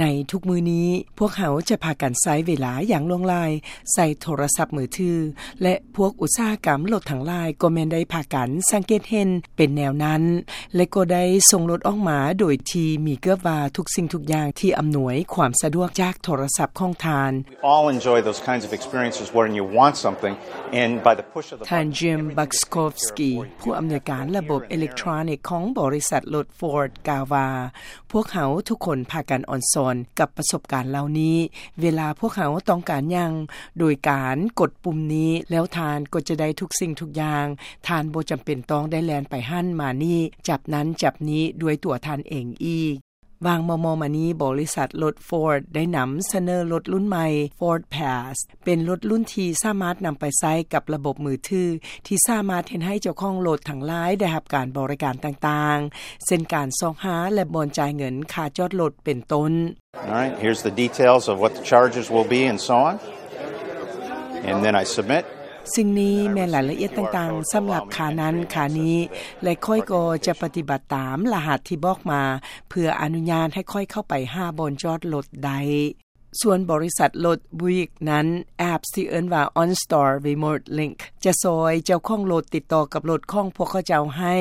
ໃນທຸກມື້ນີ້ ພວກເຮົາຈະພາກັນໃຊ້ເວລາຢ່າງຫຼວງຫຼາຍໃສ່ໂທລະສັບມືຖື ແລະ ພວກອຸດສາຫະກຳລົດທັງຫຼາຍກໍແມ່ນໄດ້ພາກັນສັງເກດເຫັນເປັນແນວນັ້ນ ແລະ ກໍໄດ້ສົ່ງລົດອອກມາໂດຍທີ່ມີເກືອບວ່າທຸກສິ່ງທຸກຢ່າງທີ່ອຳນວຍຄວາມສະດວກຈາກໂທລະສັບຂອງທ່ານ. We all enjoy those kinds of experiences when you want something, and by the push of the button, ທ່ານ Jim Buczkowski ຜູ້ອຳນວຍການລະບົບເອເລັກໂທຣນິກຂອງບໍລິສັດລົດ Ford ກ່າວວ່າ ພວກເຮົາທຸກຄົນພາກັນອອນຊອນກັບປະສົບການເຫຼົ່ານີ້. ເວລາພວກເຮົາຕ້ອງການຫຍັງ ໂດຍການກົດປຸ່ມນີ້ ແລ້ວທ່ານກໍຈະໄດ້ທຸກສິ່ງທຸກຢ່າງ. ທ່ານບໍ່ຈຳເປັນຕ້ອງໄດ້ແລ່ນໄປຫັ້ນມານີ້ ຈັບນັ້ນຈັບນີ້ດ້ວຍຕົວທ່ານເອງອີກ. ຫວ່າງມໍ່ໆມານີ້ ບໍລິສັດລົດ Ford ໄດ້ນຳສະເໜີລົດລຸ້ນໃໝ່ Ford Pass ເປັນລົດລຸ້ນທີ່ສາມາດນຳໄປໃຊ້ກັບລະບົບມືຖື ທີ່ສາມາດເຮັດໃຫ້ເຈົ້າຂອງລົດທັງຫຼາຍໄດ້ຮັບການບໍລິການຕ່າງໆ ເຊັ່ນ ການຊອກຫາ ແລະ ບ່ອນຈ່າຍເງິນຄ່າຈອດລົດເປັນຕົ້ນ. All right, here's the details of what the charges will be and so on. And then I submit. ສິ່ງນີ້ແມ່ນລາຍລະອຽດຕ່າງໆ ສຳລັບຄ່ານັ້ນຄ່ານີ້ ແລະ ຂ້ອຍກໍຈະປະຕິບັດຕາມລະຫັດທີ່ບອກມາ ເພື່ອອະນຸຍາດໃຫ້ຂ້ອຍເຂົ້າໄປຫາບ່ອນຈອດລົດໄດ້. ສ່ວນບໍລິສັດລົດ Buick ນັ້ນ ແອັບທີ່ເອີ້ນວ່າ OnStar Remote Link ຈະຊ່ອຍເຈົ້າຂອງລົດຕິດຕໍ່ກັບລົດຂອງພວກເຂົາເຈົ້າໃຫ້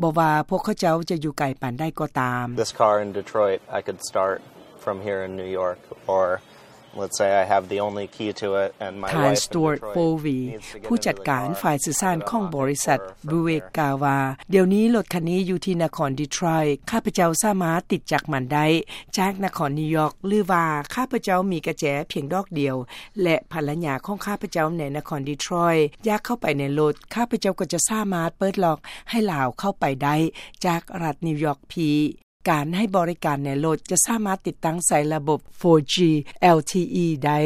ບໍ່ວ່າພວກເຂົາເຈົ້າຈະຢູ່ໄກປານໃດກໍຕາມ. This car in Detroit, I could start from here in New York, or let's say I have the only key to it and my ທ່ານ wife in Stuart Detroit Foley, needs to get ຜູ້ຈັດການ into the car, ຝ່າຍສື່ສານຂອງບໍລິສັດ Buick ກ່າວວ່າ ດຽວນີ້ລົດຄັນນີ້ຢູ່ທີ່ນະຄອນ Detroit, ຂ້າພະເຈົ້າສາມາດຕິດຈັກມັນໄດ້ຈາກນະຄອນນິວຢອກ ຫຼືວ່າຂ້າພະເຈົ້າມີກະແຈພຽງດອກດຽວ ແລະ ພັນລະຍາຂອງຂ້າພະເຈົ້າໃນນະຄອນ Detroit ຢາກເຂົ້າໄປໃນລົດ, ຂ້າພະເຈົ້າກໍຈະສາມາດເປີດລັອກໃຫ້ລາວເຂົ້າໄປໄດ້ຈາກລັດນິວຢອກພີ. ການໃຫ້ບໍລິການໃນລົດຈະສາມາດຕິດຕັ້ງໃສ່ລະບົບ ໂຟຈີ LTE ໄດ້,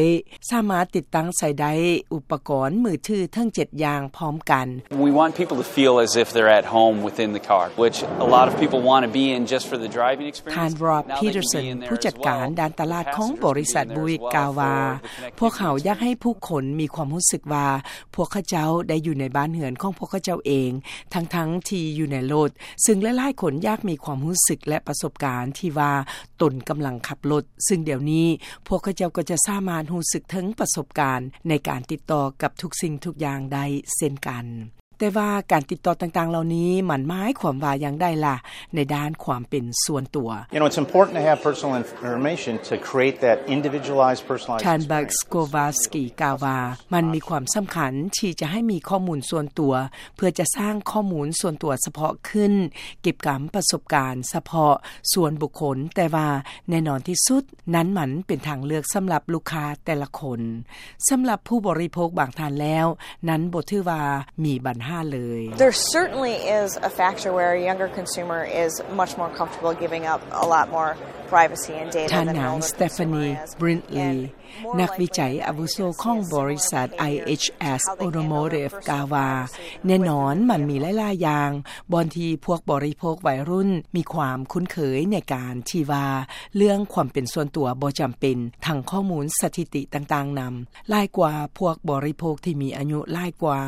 ສາມາດຕິດຕັ້ງໃສ່ໄດ້ອຸປະກອນມືຖືເຖິງເຈັດຢ່າງພ້ອມກັນ. We want people to feel as if they're at home within the car, which a lot of people want to be in just for the driving experience. ທ່ານ Rob Peterson ຜູ້ຈັດການດ້ານຕະຫຼາດຂອງບໍລິສັດ Buick ກ່າວວ່າ ພວກເຮົາຢາກໃຫ້ຜູ້ຄົນມີຄວາມຮູ້ສຶກວ່າ ພວກເຂົາເຈົ້າໄດ້ຢູ່ໃນບ້ານເຮືອນຂອງພວກເຂົາເຈົ້າເອງ ທັງໆທີ່ຢູ່ໃນລົດ, ຊຶ່ງຫຼາຍໆຄົນຢາກມີຄວາມຮູ້ສຶກ ແລະ ປະສົບການທີ່ວ່າຕົນກຳລັງຂັບລົດ, ຊຶ່ງດຽວນີ້ພວກເຂົາເຈົ້າກໍຈະສາມາດຮູ້ສຶກເຖິງປະສົບການໃນການຕິດຕໍ່ກັບທຸກສິ່ງທຸກຢ່າງໄດ້ເຊັ່ນກັນ. ແຕ່ວ່າການຕິດຕໍ່ຕ່າງໆເຫຼົ່ານີ້ ມັນໝາຍຄວາມວ່າຢ່າງໃດລະ ໃນດ້ານຄວາມເປັນສ່ວນຕົວ? You know, it's important to have personal information to create that individualized, personalized ທ່ານ experience. Buczkowski ກ່າວວ່າ ມັນມີຄວາມສຳຄັນທີ່ຈະໃຫ້ມີຂໍ້ມູນສ່ວນຕົວ ເພື່ອຈະສ້າງຂໍ້ມູນສ່ວນຕົວສະເພາະຂຶ້ນ, ເກັບກຳປະສົບການສະເພາະສ່ວນບຸກຄົນ, ແຕ່ວ່າແນ່ນອນທີ່ສຸດ ນັ້ນມັນເປັນທາງເລືອກສຳລັບລູກຄ້າແຕ່ລະຄົນ. ສຳລັບຜູ້ບໍລິໂພກບາງທ່ານແລ້ວ, ນັ້ນບໍ່ຖືວ່າມີບັນຫາເລີຍ. There certainly is a factor where a younger consumer is much more comfortable giving up a lot more privacy and data than an older consumer is. ທ່ານນາງ Stephanie Brindley ນັກວິໄຈອາວຸໂສຂອງບໍລິສັດ IHS Automotive ກ່າວວ່າ ແນ່ນອນມັນມີຫຼາຍໆຢ່າງ ບ່ອນທີ່ພວກບໍລິໂພກໄວລຸ້ນມີຄວາມຄຸ້ນເຄີຍໃນການທີ່ວ່າ ເລື່ອງຄວາມເປັນສ່ວນຕົວບໍ່ຈຳເປັນ, ທັງຂໍ້ມູນສະຖິຕິຕ່າງໆນຳ, ຫຼາຍກວ່າພວກບໍລິໂພກທີ່ມີອາຍຸຫຼາຍກວ່າ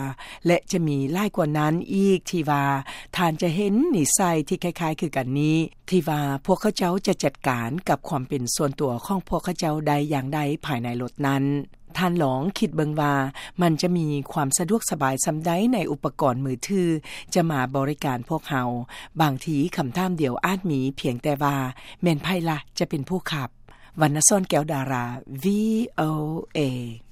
ແລະ ຈະມີຫຼາຍກວ່ານັ້ນອີກທີ່ວ່າ ທ່ານຈະເຫັນນິໄສທີ່ຄ້າຍໆຄືກັນນີ້ ທີ່ວ່າພວກເຂົາເຈົ້າຈະຈັດການກັບຄວາມເປັນສ່ວນຕົວຂອງພວກເຂົາເຈົ້າໄດ້ຢ່າງໃດພາຍໃນລົດນັ້ນ. ທ່ານລອງຄິດເບິ່ງວ່າມັນຈະມີຄວາມສະດວກສະບາຍສ່ຳໃດໃນອຸປະກອນມືຖືຈະມາບໍລິການພວກເຮົາ. ບາງທີຄຳຖາມດຽວອາດມີພຽງແຕ່ວ່າ ແມ່ນໃຜລະຈະເປັນຜູ້ຂັບ? ວັນນະສອນ ແກ້ວດາລາ ວີໂອເອ.